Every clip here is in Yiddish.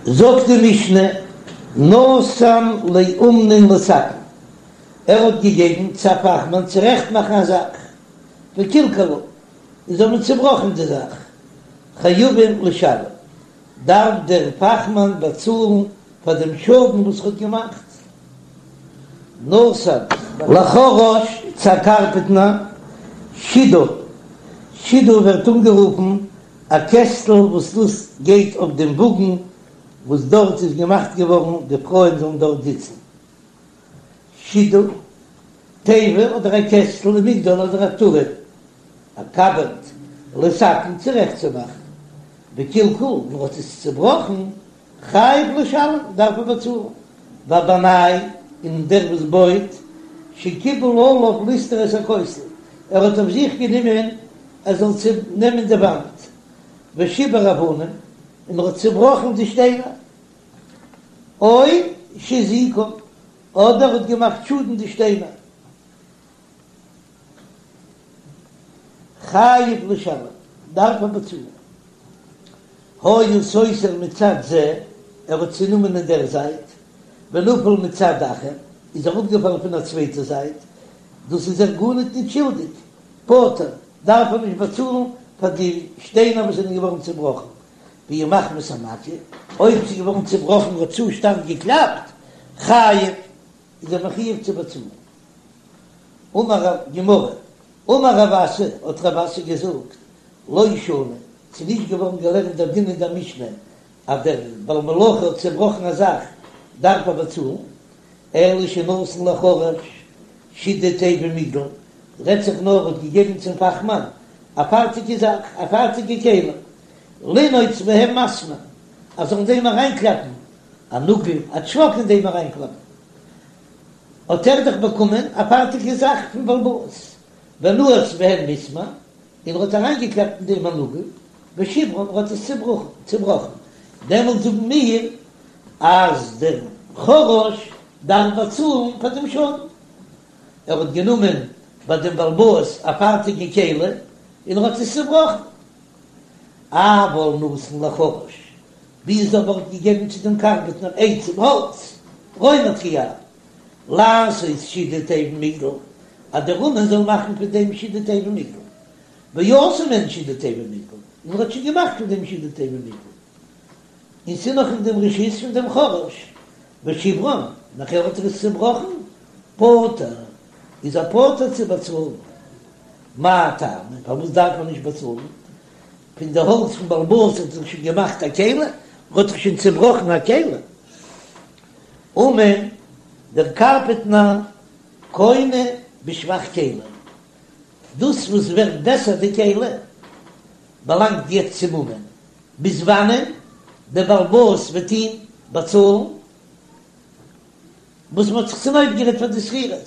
זאגט די משנה, נתן לאומנין לתקן, ער האט געגעבן צו א פאכמאן צורעכט מאכן א זאך, וקלקלו, און זיי האבן צובראכן די זאך, חייבים לשלם, דארף דער פאכמאן באצאלן פאר דעם שאדן וואס ער האט געמאכט. נתן לחרש צו א קארפענטער, שידה, שידה ווערט אנגערופן א קעסטל וואס דאס גייט אויף דעם וואגן וואס דארט איז געמאכט געווארן די פרויען זאלן דארט זיצן. שידה, תיבה אדער א קעסטל ומגדל אדער א טורעם, א קאבערד, לתקן צורעכט צו מאכן, וקלקל, מען האט עס צובראכן, חייב לשלם, דארף ער באצאלן, והבנאי, און דער וואס בויט, שקיבל עליו לסתור את הכותל, ער האט אויף זיך גענומען ער זאל צונעמען די וואנט, ושיבר אבנים, און ער האט צובראכן די שטיינער, או שהזיקן, אדער האט געמאכט שאדן די שטיינער. חייב לשלם, דארף ער באצאלן. היה סותר מצד זה, ער האט צונומען אין דער זייט, ונפל מצד אחר, איז אראפגעפאלן פון א צווייטע זייט, דאס איז ער גארניט ניט שולדיג, פטור, דארף ער נישט באצאלן פאר די שטיינער וואס זענען געווארן צובראכן, ואי מחמת המכה, אויב ס'איז געווארן צובראכן האט צו שטארק געקלאפט, חייב, איז ער מחויב צו באצאלן. אמר רב, גמרא, אמר רב אסי, האט רב אסי געזאגט, לא שנו, ס'איז נישט געווארן געלערנט דער דין אין דער משנה אז דער בעל מלאכה האט צעבראכן א זאך דארף ער באצאלן, אלא שנתן לחרש שידה תיבה ומגדל, רעדט זיך נאר האט געגעבן צום פאכמאן א פארטיגע זאך, א פארטיגע כלי, לנעוץ בהם מסמר, אז זאל אין דעם אריינקלאפן א נאגל, א טשוואק אין דעם אריינקלאפן. האט ער דאך באקומען א פארטיגע זאך פון בעל הבית, ונעץ בהן מסמר, און ער האט אריינגעקלאפט אין דעם א נאגל, ושיברן, ער האט עס צובראכן, דעמאלט זאגן מיר אז דער חרש דארף באצאלן פאר דעם שאדן, ער האט גענומען ביי דעם בעל הבית א פארטיגע כלי און ער האט עס צובראכן. אבל נתן לחרש, ווי איז אבער האט געגעבן צו דעם קארפענטער עצים האלץ, רוימאטריאל, לעשות שידה תיבה ומגדל, אז דער אומן זאל מאכן פון דעם שידה תיבה ומגדל, ועשה מהן שידה תיבה ומגדל, און ער האט שוין געמאכט פון דעם שידה תיבה ומגדל, און ס'איז נאך אין דעם רשות פון דעם חרש, ושיברן, נאכער האט ער עס צעבראכן, פטור, איז ער פטור צו באצאלן. מאי טעמא, פארוואס דארף מען נישט באצאלן? פון די האלץ פון בעל הבית האט זיך שוין געמאכט א כלי, האט זיך שוין צעבראכן א כלי. אומן, דער קארפענטער קונה בשבח כלי, דאס וואס ווערט בעסער די כלי, באלאנגט יעצט צום אומן, ביז וואנען דער בעל הבית וועט אים באצאלן וואס מען האט זיך צונויפגערעדט פאר די שכירות.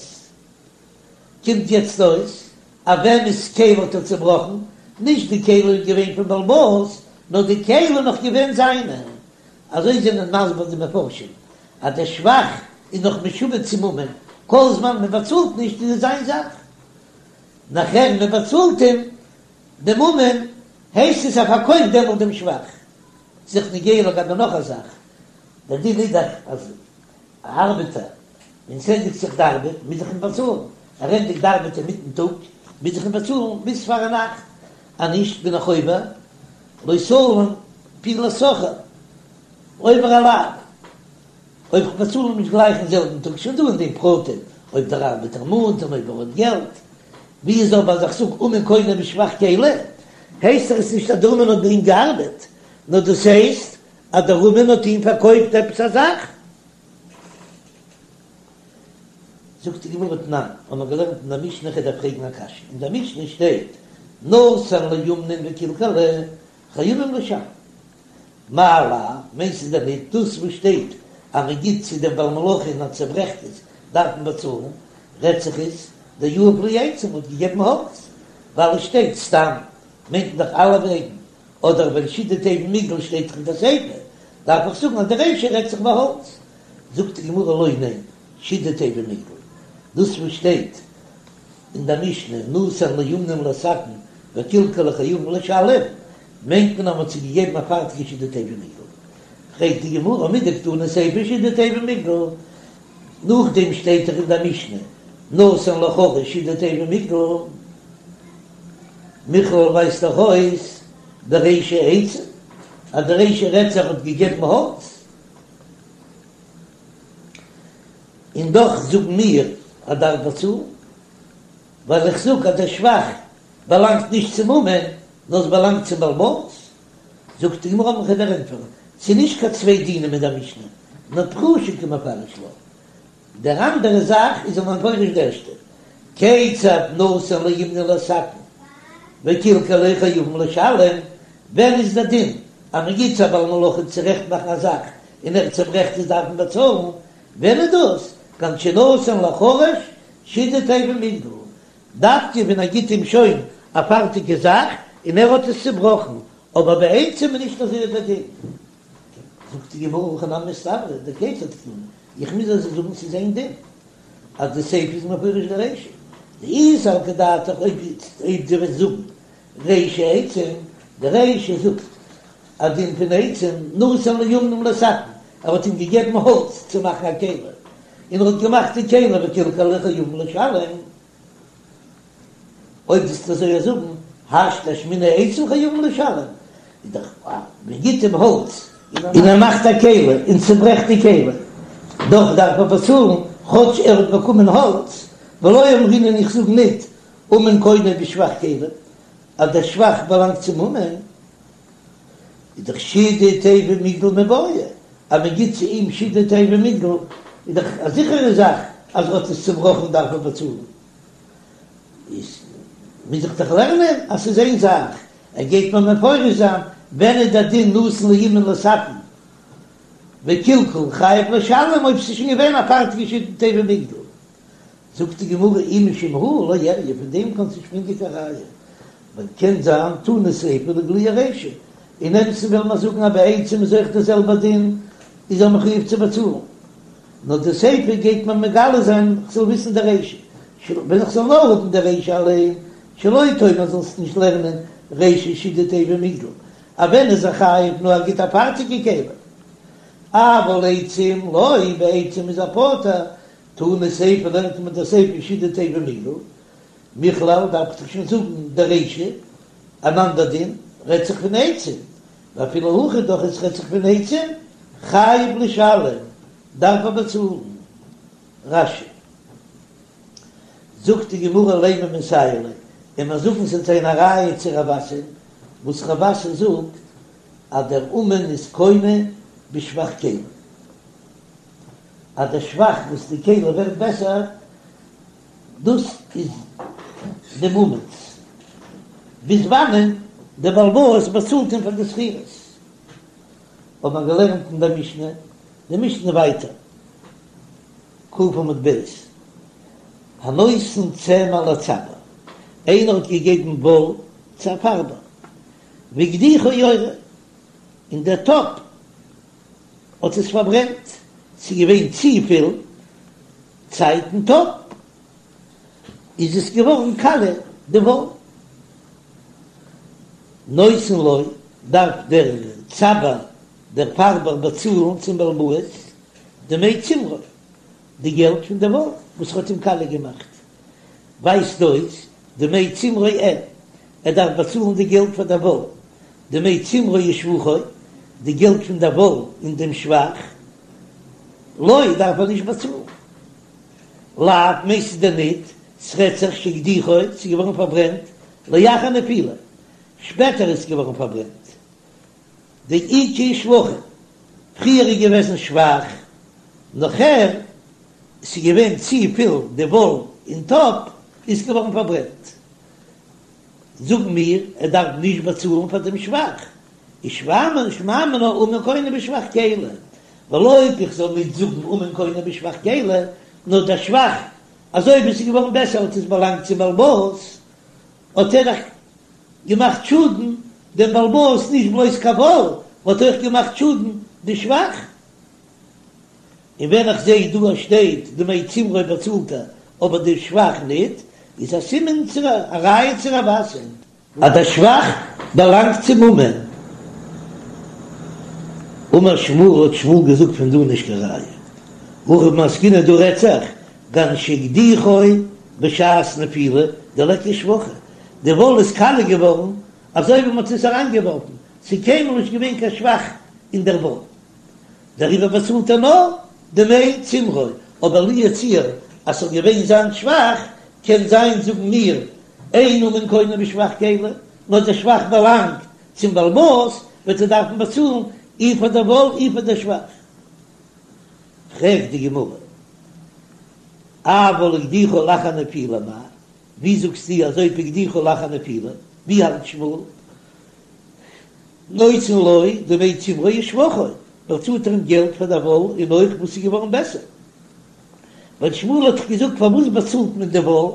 קומט יעצט אויס אז וועמענס כלי האט ער צובראכן, נישט די כלי איז געווען פון בעל הבית, נאר די כלי איז נאך געווען זיינע. אזוי זענען מסביר די מפרשים, אז דער שבח איז נאך משועבד צום אומן, כל זמן מען באצאלט נישט איז עס זיין זאך, נאכער מען באצאלט אים דעם אומן, הייסט עס ער פארקויפט דעמאלט דעם שבח. ס'איז נוגע לגבי נאך א זאך, דער דין איז דאך אז א ארבעטער, ווען ס'ענדיגט זיך די ארבעט, מוז איך אים באצאלן. ער ענדיגט די ארבעט אינמיטן טאג, מוז איך אים באצאלן ביז פארנאכט, אז נישט בין איך עובר לא תלין פעולת שכיר, עובר א לאו. אויב איך באצאל אים נישט גלייך אין זעלבן טאג, שוין דא אין דעם פרטים, אויב דער ארבעטער מאנט און אויב ער האט געלט. ווי איז אבער אז איך זאג אומן קונה בשבח כלי, הייסט עס נישט אז דער אומן האט ביי אים געארבעט, נאר דאס הייסט אז דער אומן האט אים פארקויפט עפעס א זאך. זאגט די גמרא תנן, האבן מיר געלערנט אין דער משנה, כ'דארף פרעגן א קשיא, אין דער משנה שטייט נתן לאומנין וקלקלו חייבים לשלם, מאי לאו, מיינסטו דען ניט דאס וואס שטייט אז מען גיט צו דעם בעל מלאכה און ער צעברעכט עס דארף מען באצאלן, רעדט זיך עס דיהב להו עצים האט געגעבן האלץ, ווייל עס שטייט סתם מיינט מען דאך אלע וועגן אדער ווען שידה תיבה ומגדל שטייט דאך אין די סיפא, דארף איך זאגן אז די רישא רעדט זיך ביי האלץ. זאגט די גמרא לא ניין, שידה תיבה ומגדל, דאס וואס שטייט אין די משנה נתן לאומנים לתקן וקלקלו חייבים לשלם, מיינט מען אז מען האט זיי געגעבן א פארטיגע שידה תיבה ומגדל. פרעגט די גמרא מדקתני סיפא שידה תיבה ומגדל, נאכדעם שטייט דאך אין דער משנה נתן לחרש שידה תיבה ומגדל, מכלל ווייזט דאך אויס דרישא עצים אז די רישא רעדט זיך האט געגעבן האלץ, און דאך זאגן מיר אז דארף באצאלן, ווייל איך זאג אז דער שבח באלאנגט נישט צום אומן נאר עס באלאנגט צום בעל הבית. זאגט די גמרא מ'קען דיר ענטפערן, ס'איז נישט קיין צוויי דינים אין דער משנה, נאר פרושי קא מפרש לה, דער אנדערע זאך איז ער מפרש די ערשטע, כיצד נתן לאומנין לתקן וקלקלו חייבין לשלם, ווען איז דער דין אז מען גיט צו א בעל מלאכה צורעכט מאכן א זאך און ער צוברעכט עס דארף מען באצאלן, ווען איז דאס? כגון שנתן לחרש שידה תיבה ומגדל, דווקא ווען ער גיט אים שוין א פארטיגע זאך און ער האט עס צובראכן, אבער ביי עצים איז נישט אזוי דער דין. זאגט די גמרא הכי נמי מסתברא דכיצד קתני, איך מוז אזוי זאגן ס'איז איין דין אז די סיפא איז מפרש די רישא, דאי סלקא דעתך אויב דו וועסט זאגן רישא עצים, די רישא זאגט א דין פון עצים, נתן לאומנים לתקן, ער האט אים געגעבן האלץ צו מאכן א כלי, און ער האט געמאכט די כלי וקלקלו חייבין לשלם. אויב וועסטו אזוי זאגן, השתא אשמעינן עצים חייבין לשלם, איז דאך אז מען גיט אים האלץ און ער מאכט א כלי און צוברעכט די כלי, דאך דארף ער באצאלן כאטש ער האט באקומען האלץ, ולא אמרינן איך זאג ניט אומן קונה בשבח כלים, אז דער שבח באלאנגט צום אומן, איז דאך שידה תיבה ומגדל מיבעיא, אז מען גיט צו אים שידה תיבה ומגדל איז דאך א זיכערע זאך אז ער האט עס צובראכן דארף ער באצאלן. איז מוז איך דאך לערנען אז ס'איז איין זאך, ער גייט מיר מפרש זיין ווען איז דער דין נתן לאומן לתקן וקלקל חייב לשלם אויב ס'איז שוין געווען א פארטיגע שידה תיבה ומגדל. זאגט די גמרא אי משום הא לא איריא, פון דעם קענסטו נישט ברענגען קיין ראיה, ווייל קען זיין תנא סיפא לאיגלויי רישא, אין אמת'ן וועל מיר זאגן אז ביי עצים איז אויך דער זעלבער דין, איז ער מחויב צו באצאלן, נאר די סיפא גייט מיר מגלה זיין איך זאל וויסן די רישא, ווען איך זאל נאר האבן די רישא אליין, שלא תאמר זאלסט נישט לערנען רישא שידה תיבה ומגדל, אז ווען איז ער חייב נאר ער גיט א פארטיגע כלי, אבל עצים לא, ביי עצים איז ער פטור, תנא סיפא לערנט מען די סיפא שידה תיבה ומגדל, מכלל דארף איך דאך שוין זאגן די רישא, אן אנדער דין רעדט זיך פון עצים, ואפילו הכי דאך עס רעדט זיך פון עצים, חייב לשלם, דארף ער באצאלן. רש"י. זאגט די גמרא לימא מסייע ליה, און מיר זאגן ס'וועט זיין א ראיה צו רב אסי, וואס רב אסי זאגט אז דער אומן איז קונה בשבח כלי. אז דער שבח וואס די כלי ווערט בעסער, דאס איז דעם אומן'ס, ביז וואנען דער בעל הבית באצאלט אים פאר די שכירות. האט מען געלערנט אין דער משנה, די משנה ווייטער, ק עמוד ב', הנותן צמר לצבע, איינער האט געגעבן וואל צו א פארבער, והקדיחו יורה, און דער טאפ האט עס פארברענט, ס'איז געווען צופיל צייט אין טאפ, איז עס געווארן קאליע די וואל. נותן לו, דארף דער צבע, דער פארבער באצאלן צום בעל הבית דמי צמרו, די געלט פון די וואל וואס האט אים קאליע געמאכט, ווייזט אויס דמי צמרו אין, ער דארף באצאלן די געלט פאר די וואל, דמי צמרו ושבחו, די געלט פון די וואל און דעם שבח, לא דארף ער נישט באצאלן. לאו מיינסטו דען ניט, ס'רעדט זיך שהקדיחו, ס'איז געווארן פארברענט, לאחר נפילה, שפעטער איז געווארן פארברענט. דאיכא שבחין, פריער איז געוועזן שבח, נאכער ס'איז געווען צופיל די וואל אין טאפ, איז געווארן פארברענט. זאגן מיר ער דארף נישט באצאלן פאר דעם שבח, איז שמע מינה אומן קונה בשבח כלי, ווייל אויב איך זאל נישט זאגן אומן קונה בשבח כלי, נאר דער שבח אזוי ווי עס איז געווארן בעסער האט עס באלאנגט צום בעל הבית, האט ער דאך געמאכט שאדן דעם בעל הבית נישט בלויז קיין וואל, האט אויך געמאכט שאדן די שבח. און ווען איך זעה דא אז שטייט דמי צמרו באצאלט ער אבער די שבח ניט, איז א סימן צו א ראיה צו רב אסי. אז דער שבח באלאנגט צום אומן. אמר שמואל האט שמואל געזאגט פון דא נישט קיין ראיה. הכא במאי עסקינן דא רעדט זיך כגון שהקדיחו בשעת נפילה דליכא שבחא, די וואל איז קאליע געווארן אזוי ווי מ'האט עס אריינגעווארפן, ס'איז קיינמאל נישט געווען קיין שבח אין דער וואל, דעריבער באצאלט ער נאר דמי צמרו, אבער לו יצוייר אז ס'זאל געווען זיין שבח, קען זיין זאגן מיר אין אומן קונה בשבח כלי, נאר דער שבח באלאנגט צום בעל הבית, וועט ער דארפן באצאלן אי פאר דער וואל אי פאר דער שבח. פרעגט די גמרא, אבל הקדיחו לאחר נפילה מאי? ווי זאגסטו אז אויב הקדיחו לאחר נפילה, ווי האלט שמואל? נותן לו דמי צמרו ושבחו, באצאלט ער אים געלט פאר דער וואל און אויך וואס איז געווארן בעסער. ווייל שמואל האט דאך געזאגט פארוואס באצאלט מען די וואל,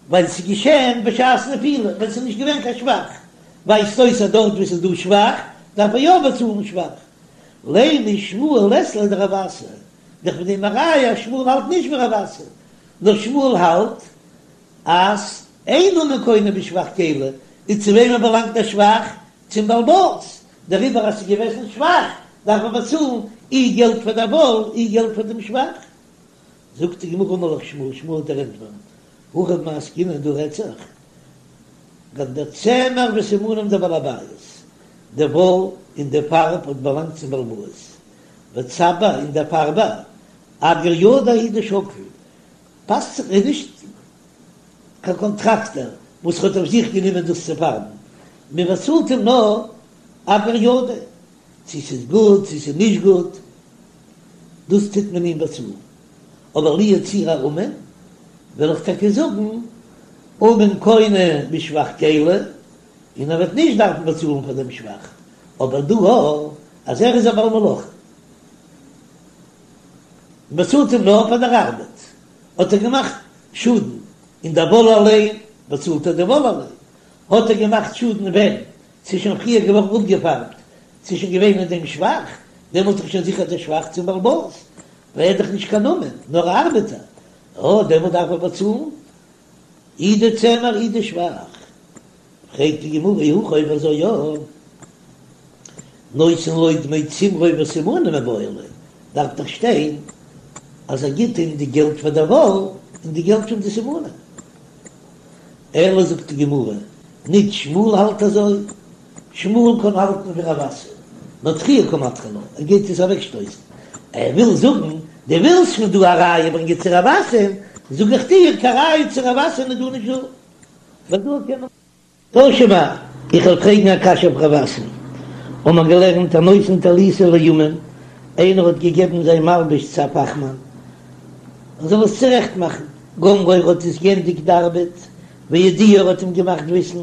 ווייל ס'איז געשען בשעת נפילה ווען ס'איז נישט געווען קיין שבח, ווייזט אויס אז דארט וואו ס'איז דא שבח דארף ער יא באצאלן שבח. לימא שמואל לית ליה דרב אסי, דאך פון דעם א ראיה אז שמואל האלט נישט ווי רב אסי, נאר שמואל האלט אז אין אומן קונה בשבח כלי, און צו וועמען באלאנגט דער שבח? צום בעל הבית, דעריבער אז ס'איז געוועזן שבח דארף מען באצאלן אי געלט פאר דער וואל אי געלט פאר דעם שבח. זאגט די גמרא אמר לך שמואל, שמואל וועט דיר ענטפערן, הכא במאי עסקינן דא רעדט זיך כגון דצמר וסימנים דבעל הבית, די וואל און די פארב האט באלאנגט צום בעל הבית, וצבע און דער פארבער, אגר ידיה הוא דשקיל, פאסט זיך איז נישט קיין קאנטראקטער וואס האט אויף זיך גענומען דאס צו פארבן, מען באצאלט אים נאר אגר ידיה, צו ס'איז גוט צו ס'איז נישט גוט, דאס טוט מען אים באצאלן. אבער לו יצוייר א אומן, וועל איך טאקע זאגן, אומן קונה בשבח כלי, און ער וועט נישט דארפן באצאלן פאר דעם שבח, אבער דא אז ער איז א בעל מלאכה, מען באצאלט אים נאר פאר דער ארבעט, האט ער געמאכט שאדן אין דער וואל אליין, באצאלט ער די וואל אליין, האט ער געמאכט שאדן ווען ס'איז שוין פריער געווארן אפגעפארבט, ס'איז שוין געווען אין דעם שבח, דעמאלט איז שוין זיכער דער שבח צום בעל הבית, ווייל ער איז דאך נישט קיין אומן, נאר א ארבעטער, אה, דעמאלט דארף ער באצאלן אי די צמר אי די שבח. פרעגט די גמרא אי הכי אויב אזוי יא, נותן לו דמי צמרו וסימנים מיבעי ליה, דארף דאך שטיין אז ער גיט אים די געלט פאר דער וואל און די געלט פון די סימנים. אלא זאגט די גמרא, ניט שמואל האלט אזוי, שמואל קען האלטן ווי רב אסי, נאר דחויי קא מדחי לה, ער גייט עס אוועקשטויסן, ער וויל זאגן, דו ווילסט פון דא א ראיה ברענגען צו רב אסי'ן, זאג איך דיר, קיין ראיה צו רב אסי'ן איז דא נישט דא, ווייל דא קען מען. תא שמע, איך וועל פרעגן א קשיא אויף רב אסי'ן. האבן מיר געלערנט הנותן טליתו לאומן, איינער האט געגעבן זיין מלבוש צו א פאכמאן, ער זאל עס צורעכט מאכן, גמרו ער האט עס גענדיגט די ארבעט, והודיעו ער האט אים געמאכט וויסן,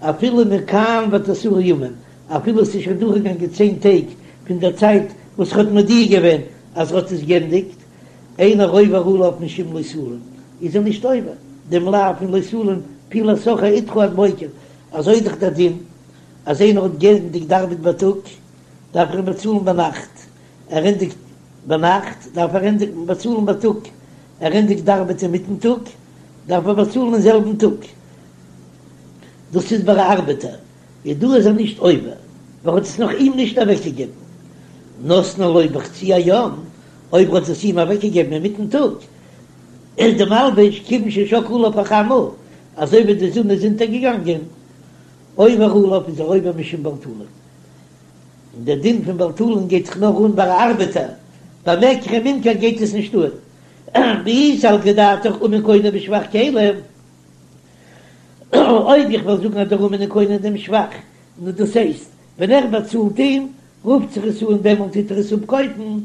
אפילו מכאן ועד עשרה ימים, אפילו עס איז שוין דורכגעגאנגען צען טעג פון דער צייט וואס ער האט מודיע געווען אז ער האט עס גענדיגט, אינו עובר עליו משום לא תלין, איז ער נישט עובר דעם לאו פון לא תלין פעולת שכיר אתך עד בוקר, אזוי איז דאך דער דין אז איינער האט גענדיגט די ארבעט בייטאג דארף ער אים באצאלן ביינאכט, ער ענדיגט ביינאכט דארף ער ענדיגן באצאלן בייטאג, ער ענדיגט די ארבעט אינמיטן טאג דארף ער באצאלן אין זעלבן טאג, דאס איז ביי א ארבעטער, איז דא איז ער נישט עובר, ווייל ער האט עס נאך אים נישט אוועקגעגעבן, נתנו לו בחצי היום, אויב ער האט עס אים אוועקגעגעבן אינמיטן טאג, איז די מלבוש כיוון ששקעה עליו החמה, אזוי ווי די זון איז אונטערגעגאנגען, עובר עליו איז ער עובר משום בל תלין. און דער דין פון בל תלין גייט זיך נאר אן ביי א ארבעטער, ביי מקח וממכר גייט עס נישט אן. ואי סלקא דעתך אומן קונה בשבח כלי, אויב איך וועל זאגן אז דער אומן איז קונה דעם שבח, נו דאס הייסט, ווען ער באצאלט אים, רופט זיך עס אן דעמאלט טוט ער עס אפקויפן,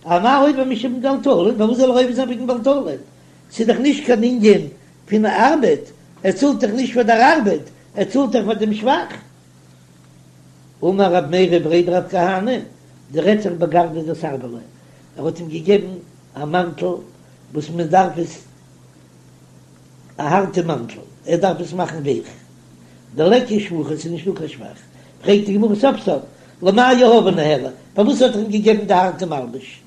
אמאי עובר משום בל תלין, פארוואס זאל ער עובר זיין וועגן בל תלין? ס'איז דאך נישט קיין ענין פון ארבעט, ער צאלט דאך נישט פאר דער ארבעט, ער צאלט דאך פאר דעם שבח. אמר רב מרי בריה דרב כהנא, דא רעדט זיך בגרדא דסרבלא, ער האט אים געגעבן א מאנטל וואס מען דארף עס, א הארטע מאנטל, ער דארף עס מאכן ווייך, דליכא שבחא, ס'איז נישטא קיין שבח, פרעגט די גמרא סוף סוף, למאי יהביה ניהליה, פארוואס האט ער אים געגעבן די הארטע מלבוש?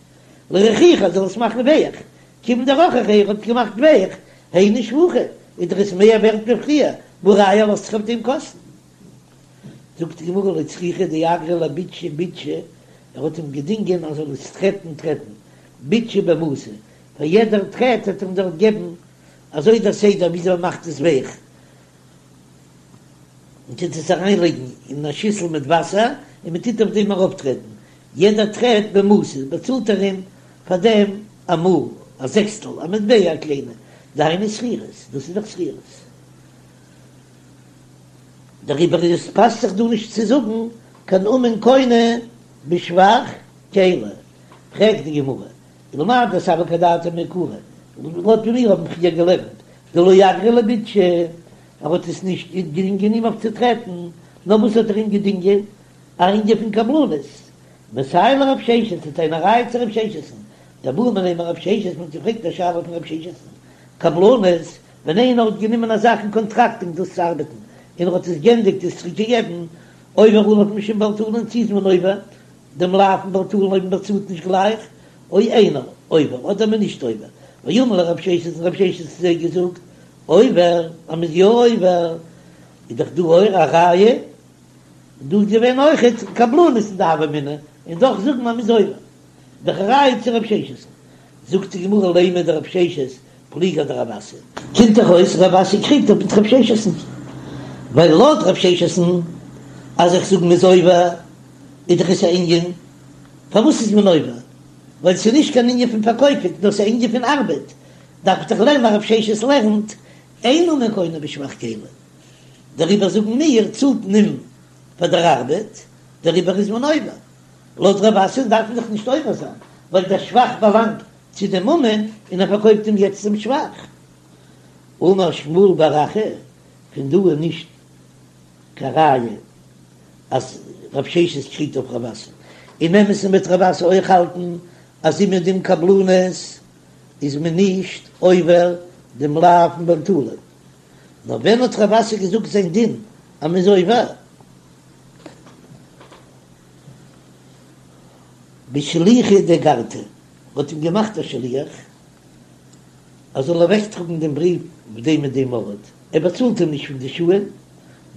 לרכוכי ער זאל עס מאכן ווייך, כיוון דרככיה ער האט געמאכט ווייך, היינו שבחא, איז דאך עס מער ווערט ווי פריער, והא ראיה ער לאזט זיך אויף דעם קאסטן. זאגט די גמרא לא צריכא דאגריה לביטשי ביטשי. ער האט אים געדינגען אז ער זאל עס טרעטן טרעטן ביטשא במעתא, פאר יעדער טרעט האט ער אים דארט געבן אזוי דער סדר וויאזוי מען מאכט עס ווייך, מען טוט עס אריינלייגן אין א שיסל מיט וואסער און מען טוט אויף דעם ארויפטרעטן, יעדער טרעט במעתא באצאלט ער אים פאר דעם א מעה, א זעקסטל, א מטבע א קליינע, דהיינו שכירות, דאס איז דאך שכירות. דעריבער איז עס פאסט זיך דא נישט צו זאגן קיין אומן קונה בשבח כלי. פרעגט די גמרא, ולמאי דסלקא דעתך מעיקרא, לויט ווי מיר האבן פריער געלערנט, דלא אגריה לביטשי, ער האט עס נישט געדינגען אים אויף צו טרעטן, נאר וואס האט ער אים געדינגען? א ענין פון קבלנות. מסייע לרב ששת, ס'איז א ראיה צו רב ששת'ן, דבעו מיניה מרב ששת, מ'האט געפרעגט א שאלה פון רב ששת'ן, קבלנות, ווען איינער האט גענומען א זאך אין קאנטראקט אום דאס צו ארבעטן, און ער האט עס גענדיגט עס צוריק געגעבן, עובר עליו משום בל תלין, צו איז מען עובר דעם לאו פון בל תלין אויב מען באצאלט נישט גלייך, או אינו עובר, אדער מען נישט עובר, ואמר להו רב ששת און רב ששת האט זיי געזאגט, עובר, אז מען איז יא עובר, איז דאך דא אויך א ראיה, דא איז געווען אויכעט קבלנות אין די הוה אמינא, און דאך זאגן אז מען איז עובר, דאך א ראיה צו רב ששת. זאגט די גמרא לימא דרב ששת פליגא אדרב אסי. קומט דאך אויס רב אסי קריגט אויף מיט רב ששת'ן, ווייל לויט רב ששת'ן אז איך זאג מ'איז עובר איז דאך עס א ענין, פארוואס איז מען עובר? ווייל ס'איז נישט קיין ענין פון פארקויפן נאר ס'איז א ענין פון ארבעט, דארף איך דאך לערנען אז רב ששת לערנט אין אומן קונה בשבח כלי, דעריבער זאגן מיר צאלט מען אים פאר דער ארבעט, דעריבער איז מען עובר. לויט רב אסי דארף מען דאך נישט עובר זיין, ווייל דער שבח באלאנגט צו דעם אומן און ער פארקויפט אים יעצט דעם שבח. אמר שמואל בר אחא, פון דא איז נישט קיין ראיה אז רב ששת קריגט אויף רב אסי. אין אמת'ן וועט רב אסי אויך האלטן אז אומעדום קבלנות איז מען נישט עובר דעם לאו פון בל תלין. נאר ווען האט רב אסי געזאגט זיין דין אז מ'איז עובר? בשליחא דאגרתא, מ'האט אים געמאכט א שליח ער זאל אוועקטראגן דעם בריוו אויף דעם און דעם ארט, ער באצאלט אים נישט פון די שעה'ן,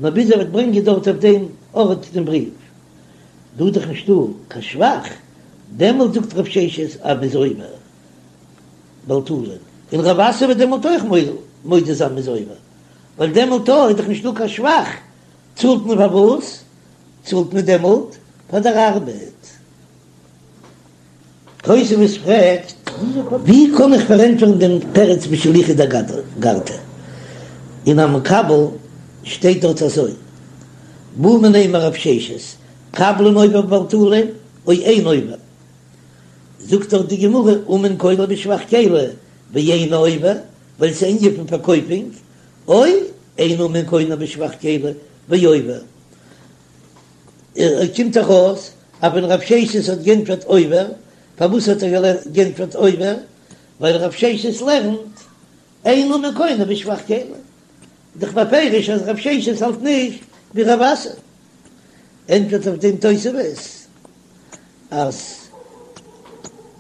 נאר ביז ער וועט ברענגען דארט אויף דעם ארט דעם בריוו. דא איז דאך נישטא קיין שבח, דעמאלט זאגט רב ששת אז מ'איז עובר בל תלין, און רב אסי וועט דעמאלט אויך מודה זיין מ'איז עובר, ווייל דעמאלט איז דאך נישטא קיין שבח, צאלט מען פאר וואס? צאלט מען דעמאלט פאר דער ארבעט. תוספות פרעגט, ווי קען איך פארענטפערן דעם תירוץ בשליחא דאגרתא? אין המקבל שטייט דארט אזוי, בעו מיניה מרב ששת, קבלן עובר בבל תלין או אין עובר? זאגט דארט די גמרא, אומן קונה בשבח כלי ואינו עובר, ווייל ס'איז ענין פון פארקויפונג, או אין אומן קונה בשבח כלי ועובר. קומט דאך אויס אז ווען רב ששת האט גענטפערט עובר, פארוואס האט ער גענטפערט עובר? ווייל רב ששת לערנט אין אומן קונה בשבח כלי, דאך בפירוש אז רב ששת האלט נישט ווי רב אסי. ענטפערט אויף דעם תוספות אז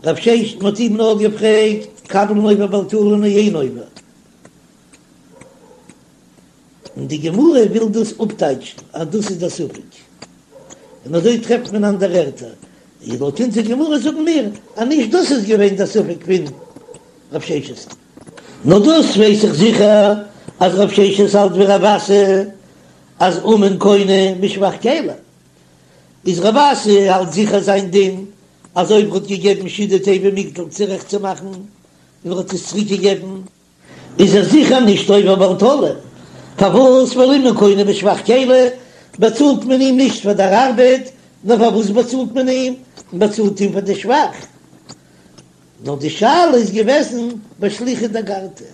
רב ששת מ'האט אים נאר געפרעגט קבלן עובר בל תלין או אין עובר. און די גמרא וויל דאס אפטייטשן אז דאס איז דער ספק, און אזוי טרעפט מען אנדערע ערטער, און לויט אונזער גמרא זאגן מיר אז נישט דאס איז געווען דער ספק פון רב ששת, נאר דאס ווייס איך זיכער אז רב ששת האלט ווי רב אסי אז אומן קונה בשבח כלי, איז רב אסי האלט זיכער זיין דין אז אויב ער האט געגעבן שידה תיבה ומגדל צורעכט צו מאכן און ער האט עס צוריק געגעבן, איז ער זיכער נישט עובר בל תלין, פארוואס ווייל אומן קונה בשבח כלי באצאלט מען אים נישט פאר דער ארבעט, נאר פארוואס באצאלט מען אים? מען באצאלט אים פאר די שבח. נאר די שאלה איז געוועזן בשליחא דאגרתא,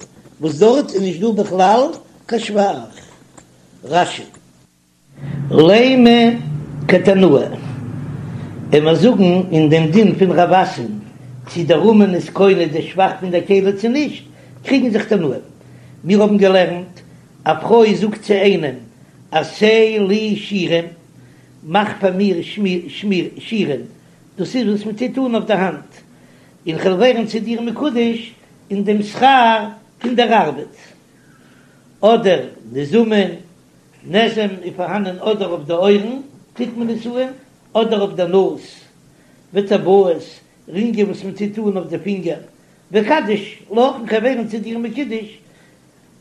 וואס דארט איז נישט דא בכלל קיין שבח. רש"י. לימא כתנאי, און מיר זאגן אין דעם דין פון רב אסי'ן צי דער אומן איז קונה די שבח פון דער כלי צו נישט, קריגן זיך תנאים. מיר האבן געלערנט, א פרוי זאגט צו איינעם, עשה לי שירים, מאך פאר מיר שירים, דאס איז וואס מען טוט אן אויף די האנט, און כ'וועל ווערן צו דיר מקודש אין דעם שכר פון דער ארבעט. אדער נזמים, נזם איז פארהאנען אדער אויף די אויערן טוט מען עס אן, אדער אויף די נאז. וטבעות, רינגען וואס מען טוט אן אויף די פינגער, ואיקדש לך, און כ'וועל ווערן צו דיר מקודש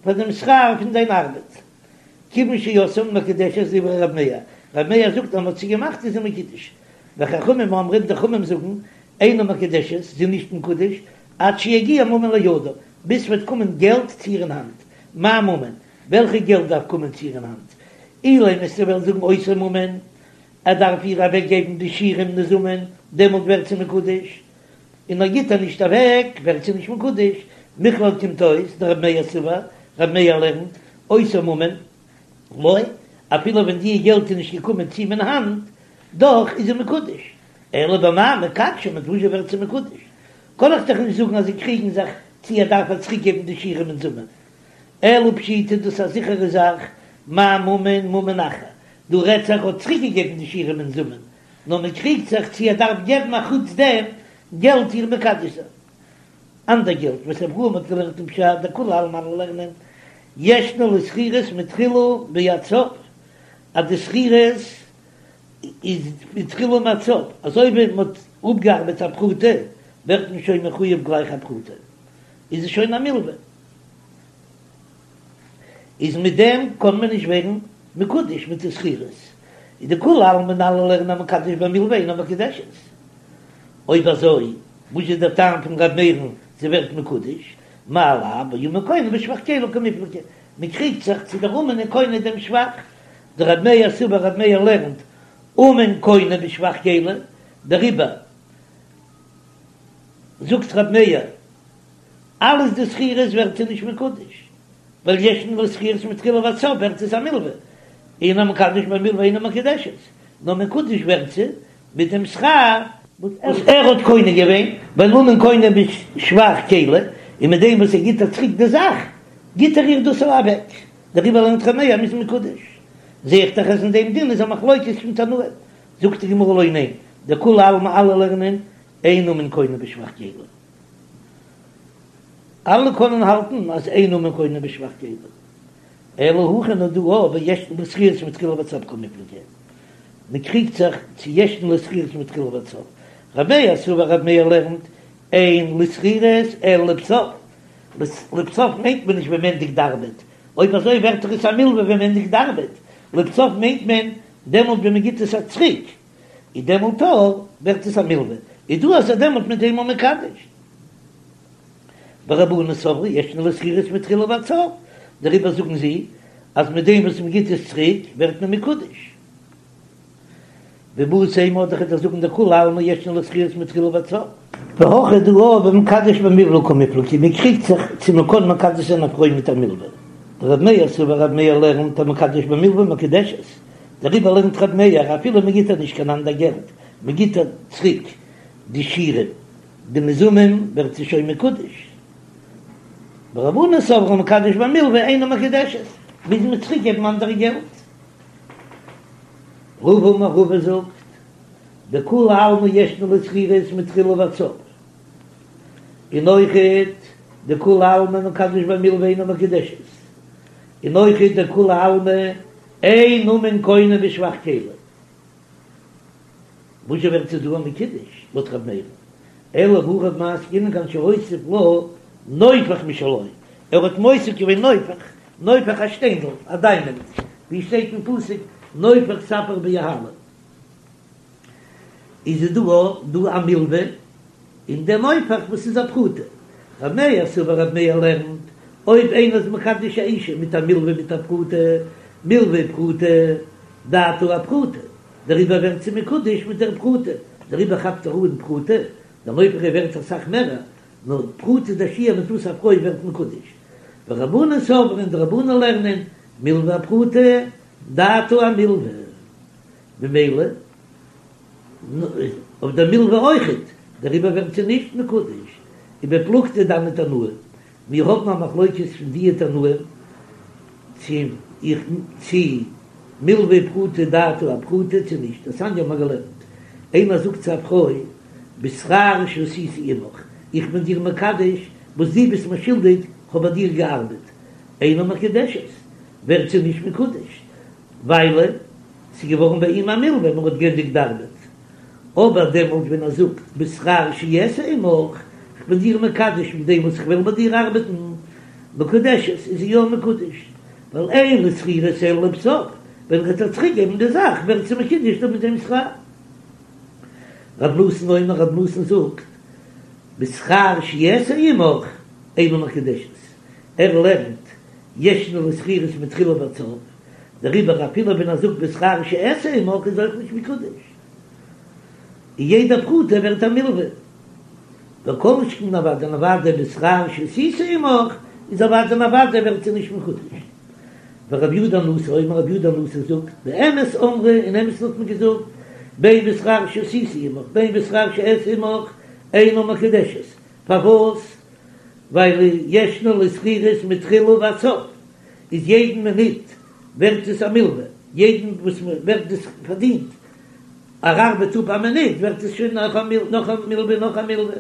פאר דעם שכר פון דיין ארבעט. כיוון שעשאן מקודשת דברי רב מאיר, רב מאיר זאגט אז מען האט זי געמאכט איז זי מקודש, וחכמים אומרים די חכמים זאגן אינה מקודשת, זי איז נישט מקודש, עד שיגיע ממון לידה, ביז ס'וועט קומען געלט צו איר אין האנט, מאי ממון, וועלכע געלט דארף קומען צו איר אין האנט? אילימא וועסטו וועלן זאגן אותו ממון, ער דארף איר אוועק געבן די שירים נזמים, דעמאלט ווערט זי מקודש, און ער גיט איר נישט אוועק ווערט זי נישט מקודש, מכלל קומט אויס דרב מאיר סבר, רב מאיר לערנט, אותו ממון, לא, אפילו ווען די געלט איז נישט געקומען צו אים אין האנט, דאך איז זי מקודש, אלא במאי מקדשא, מיט וואס ווערט זי מקודש? קען איך דאך נישט זאגן אז זיי קריגן זיך צו ער דארף איר צוריק געבן די שירים ונזמים, אלא פשיטא דאס איז א זיכערע זאך, מאי ממון ממון אחר, דא רעדט זיך ער האט צוריק געגעבן די שירים ונזמים, נאר מען קריגט זיך צו ער דארף געבן א חוץ דעם געלט איר מקדש זיין. אנדער געלט וסברוה מ'האט געלערנט אין פשט דכולי עלמא אלע לערנען ישנה לשכירות מתחילה ועד סוף אז די שכירות איז מתחילה ועד סוף אזוי ווי מען האט אפגעארבעט א פרוטה ווערט מען שוין מחויב גלייך א פרוטה איז עס שוין א מלווה. איז מיט דעם קען מען נישט ווערן מקודש מיט די שכירות, איז דכולי עלמא אלע לערנען המקדש במלוה אינה מקודשת, אויב אזוי וואס איז דער טעם פון ר' מאיר'ן זי ווערט מקודש, מאי לאו באומן קונה בשבח כלי קמיפלגי, מען קריגט זיך צו דער אומן איז קונה דעם שבח, דר' מאיר סבר ר' מאיר לערנט אומן קונה בשבח כלי, דעריבער זאגט ר' מאיר אלעס די שכירות ווערט זי נישט מקודש, ווייל ישנה לשכירות מתחילה ועד סוף ווערט עס א מלווה, און המקדש במלווה אינה מקודשת, נאר מקודש ווערט זי מיט דעם שכר וואס ער האט קונה געווען, ווייל אומן קונה בשבח כלי, און מיט דעם וואס ער גיט איר צוריק די זאך, גיט ער איר דאס אוועק, דעריבער לערנט ר' מאיר אז מ'איז מקודש. זע איך דאך אז אין דעם דין איז א מחלוקת פון תנאים, זאגט די גמרא לא ניין, דכולי עלמא אלע לערנען אין אומן קונה בשבח כלי. אלע קענען האלטן אז אין אומן קונה בשבח כלי, אלא הכא נאר דא בישנה לשכירות מתחילה ועד סוף קמיפלגי, מען קריגט זיך צו ישנה לשכירות מתחילה ועד סוף, ר' מאיר סבר ר' מאיר לערנט אין לשכירות אלא לבסוף, לבסוף מיינט מען נישט ווען מען ענדיגט די ארבעט, אויב אזוי ווערט דאך עס א מלווה ווען מען ענדיגט די ארבעט, לבסוף מיינט מען דעמאלט ווען מען גיט עס א צוריק, איז דעמאלט ווערט עס א מלווה, איז דא אז ער דעמאלט מיט דעם מקדש. ורבנן סברי ישנה לשכירות מתחילה ועד סוף, דעריבער זאגן זיי אז מיט דעם וואס מען גיט עס צוריק ווערט מען מקודש. ואיבעית אימא אדער כ'וועל זאגן דכולי עלמא ישנה לשכירות מתחילה ועד סוף. והכא דא במקדש במלוה קמיפלגי, מען קריגט זיך צו מען קען מקדש זיין א פרוי מיט א מלווה. דרב מאיר סבר רב מאיר לערנט המקדש במלוה מקודשת, דעריבער לערנט רב מאיר אפילו מען גיט איר נישט קיין אנדער געלט, מען גיט איר צוריק די שירים, די נזמים ווערט זי שוין מקודש. ורבנן סברי המקדש במלוה אינה מקודשת, מוז מען צוריק געבן אנדערע געלט. רבא אמר רבא זאגט, דכולי עלמא ישנה לשכירות מתחילה ועד סוף, און אויכעט דכולי עלמא מקדש במלוה אינה מקודשת, און אויכעט דכולי עלמא אין אומן קונה בשבח כלי. וואס זשע ווערט זי דא מקודש לויט ר' מאיר'ן? אלא הכא במאי עסקינן כגון שהוסיף לה נופך משלו, ער האט מוסיף געווען נופך, נופך א שטיינדל, א דיימאנד, ווי שטייט אין פסוק נופך ספיר ביהלום, איז עס דא דא א מלווה אין דעם נופך וואס איז א פרוטה. ר' מאיר סבר ר' מאיר לערנט, אויב איינער איז מקדש א אישה מיט א מלווה מיט א פרוטה, מלווה ופרוטה, דעתה אפרוטה, דעריבער ווערט זי מקודש מיט דער פרוטה, דעריבער כאפט ער אן פרוטה, דער נופך איז ווערט אסאך מערער, נאר פרוטה איז דער שיעור מיט וואס א פרוי ווערט מקודש. ורבנן סברי און די רבנן לערנען, מלווה אפרוטה, דעתה אמלווה. ממילא אויף דער מלווה אויכעט, דעריבער ווערט זי נישט מקודש, ובפלוגתא דהני תנאי, מיר האבן א מחלוקת פון דיע תנאים צו איך צו מלווה ופרוטה דעתה אפרוטה צו נישט, דתניא האבן מיר געלערנט, איינער זאגט צו א פרוי בשכר שעשיתי עמך, איך בין דיר מקדש וואס דו ביסט מיר שולדיג, כ'האב ביי דיר געארבעט, אינה מקודשת, ווערט זי נישט מקודש, ווייל ס'איז געווארן ביי אים א מלווה, מען האט גענדיגט די ארבעט. אבער דעמאלט ווען ער זאגט בשכר שאעשה עמך, כ'בין דיר מקדש מיט דעם וואס כ'וועל ביי דיר ארבעטן, מקודשת, איז זי יא מקודש, ווייל אין לו שכירות אלא לבסוף, ווען ער וועט איר צוריק געבן די זאך ווערט זי מקודש דא מיט דעם שכר. רב נתן אומר, רב נתן זאגט, בשכר שאעשה עמך אינה מקודשת, ער לערנט ישנה לו שכירות מתחילה ועד סוף, דעריבער אפילו ווען ער זאגט בשכר שאעשה עמך איז אויך נישט מקודש, און יעדע פרוטה ווערט א מלווה, וכל שכן אוודאי און אוודאי בשכר שעשיתי עמך איז אוודאי און אוודאי ווערט זי נישט מקודש. ורבי יהודה הנשיא אומר רבי יהודה הנשיא זאגט, באמת אמרו אין אמת'ן האט מען געזאגט, בין בשכר שעשיתי עמך בין בשכר שאעשה עמך אינה מקודשת, פארוואס? ווייל ישנה לו שכירות מתחילה ועד סוף, איז יעדן מינוט ווערט עס א מלווה, יעדן וואס ווערט דאס פארדינט, ער ארבעט אפ א מינוט ווערט עס שוין נאך א נאך א מלווה נאך א מלווה,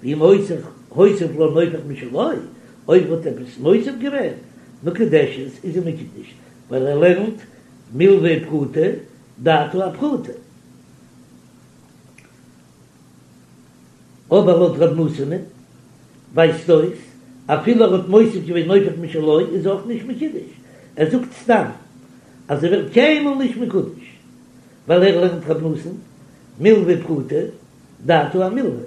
ואם הוסיף הוסיף לה נופך משלו, אויב האט עפעס מוסיף געווען, מקודשת איז זי מקודש, ווייל ער לערנט מלווה ופרוטה דעתה אפרוטה. אבער לויט ר' נתן'ען ווייזט אויס אפילו ער האט מוסיף געווען נופך משלו איז אויך נישט מקודש, ער זאגט סתם אז ער ווערט קיינמאל נישט מקודש ווייל ער לערנט ר' נתן מלווה ופרוטה דעתה אמלווה.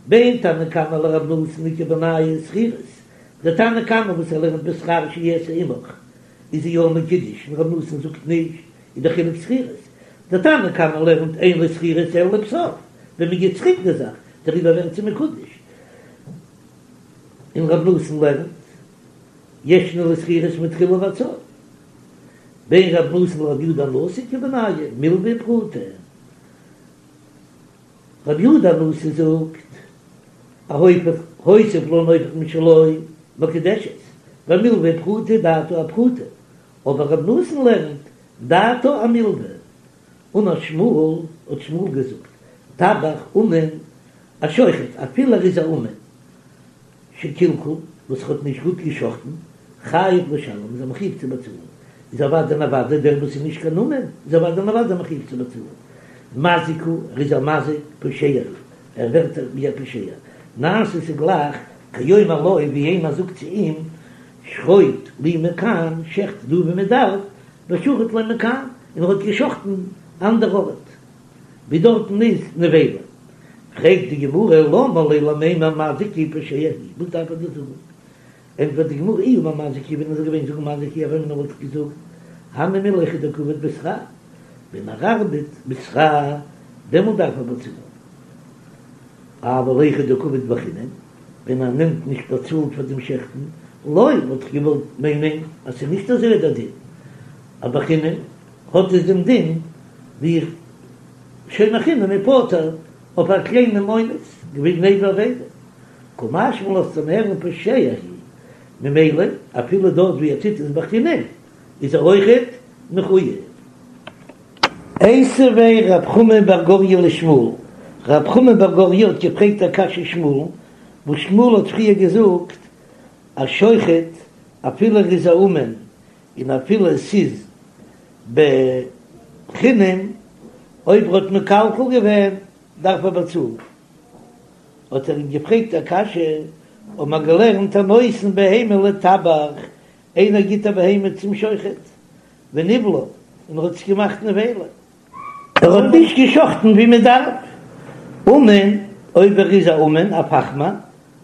בין תנא קמא לר' נתן איכא בינייהו שכירות, די תנא קמא וואס ער לערנט בשכר שאעשה עמך איז זי יא מקודש און ר' נתן זאגט נישט איז די חילוק שכירות, די תנא קמא לערנט אין לו שכירות אלא לבסוף, ווען מען גיט צוריק די זאך דעריבער ווערט זי מקודש, און ר' נתן לערנט ישנה לו שכירות מתחילה ועד סוף, בין ר' נתן לר' יהודה הנשיא איכא בינייהו מלווה ופרוטה. רבי יהודה הנשיא זאגט, א הופך הוסיף לה נופך משלו מקודשת, ווייל מלווה ופרוטה דעתה אפרוטה, אבער רבי נתן לערנט דעתה אמלווה, אמר שמואל, האט שמואל געזאגט, טבח אומן, א שוחט, אפילו ער איז א אומן, שקלקל, וואס האט נישט גוט געשחטן, חייב לשלם, איז ער מחויב צו באצאלן, איז אוודאי און אוודאי דער וואס איז נישט קיין אומן, איז אוודאי און אוודאי מחויב צו באצאלן. מזיק הוא, ער איז א מזיק, פושע הוא, ער ווערט ווי א פושע. נעשה ס'איז גלייך, כאומר לו, ווי איינער זאגט צו אים, שחוט לי מכאן, שעכט דא ווי מען דארף, ושחט לו מכאן, און ער האט געשחטן אנדער ארט, ווי דארטן איז נבילה. פרעגט די גמרא למה ליה למימר מזיק הוא פושע הוא, וואס דארף ער דאס זאגן? ענטפערט די גמרא אי אמר מזיק הוא, ווען ער זאל געווען זאגן מזיק הוא הוה אמינא וואלט איך געזאגט הני מילי היכא דקא עביד בשכר, ווען ער ארבעט בשכר דעמאלט דארף ער באצאלן, אבל היכא דקא עביד בחינם, ווען ער נעמט נישט באצאלט פאר דעם שעכטן, לא וואלט איך געוואלט מיינען אז ס'איז נישט אזוי דער דין, אז בחינם האט עס דעם דין ווי שומר חינם איז פטור אויף א קליינעם אונס, גניבה ואבידה, קא משמע לן לאזט מען הערן פושע הוא, ממילא אפילו דארט ווי ער טוט עס בחינם איז ער אויכעט מחוייב. איתיביה רב חמא בר גוריא לשמואל, רב חמא בר גוריא האט געפרעגט א קשיא שמואל'ן, וואס שמואל האט פריער געזאגט א שוחט אפילו ער איז א אומן און אפילו עס איז בחינם, אויב ער האט מקלקל געווען דארף ער באצאלן. האט ער אים געפרעגט א קשיא, האט מען געלערנט הנותן בהמה לטבח, איינער גיט א בהמה צום שוחט, וניבלה, און ער האט עס געמאכט נבילה, ער האט נישט געשחטן ווי מען דארף, אומן, אויב ער איז א אומן, א פאכמאן,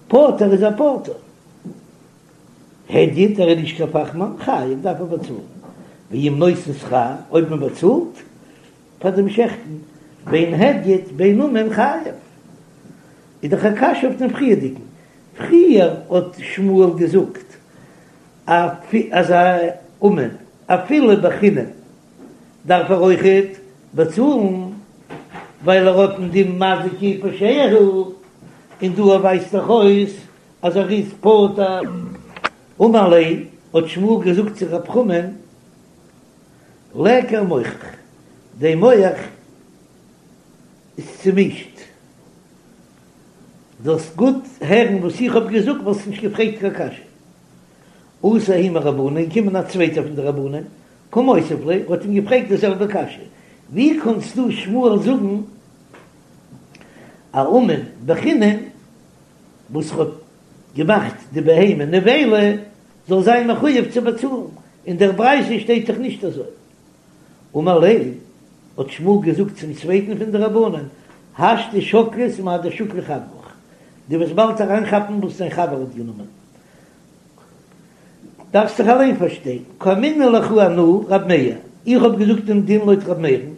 פטור איז ער פטור. הדיוט ער איז נישט קיין פאכמאן, חייב דארף ער באצאלן, ואם נותן שכר, אויב מען באצאלט פאר דעם שעכטן, בין הדיוט בין אומן חייב, איז דאך א קשיא אויף דעם פריערדיגן, פריער האט שמואל געזאגט אז א אומן אפילו בחינם דארף ער אויכעט באצאלן, ווייל ער האט דעם דין מזיק הוא פושע הוא, און דא ווייזט דאך אויס אז ער איז פטור. אמר ליה, האט שמואל געזאגט צו רב חמא'ן, ליכר מוחך, דיין מח איז צומישט, זאלסט גוט הערן וואס איך האב געזאגט, וואלסט נישט געפרעגט קיין קשיא. אתא ההוא מרבנן, געקומען א צווייטער פון די רבנן, קא מותיב ליה, האט אים געפרעגט די זעלבע קשיא, ווי קאנסטו שמואל זאגן? א אומן בחינם וואס האט געמאכט די בהמה נבילה זאל זיין מחויב צו באצאלן, אין דער ברייתא שטייט דאך נישט אזוי. אמר ליה, האט שמואל געזאגט צום צווייטן פון די רבנן, השתא שקלת מאי דשקיל חברך, דו וועסט באלד אריינכאפן וואס דיין חבר האט גענומען, דארפסט זיך אליין פארשטיין, קאמינא לך אנא רב מאיר, איך האב געזאגט דעם דין לויט רב מאיר'ן,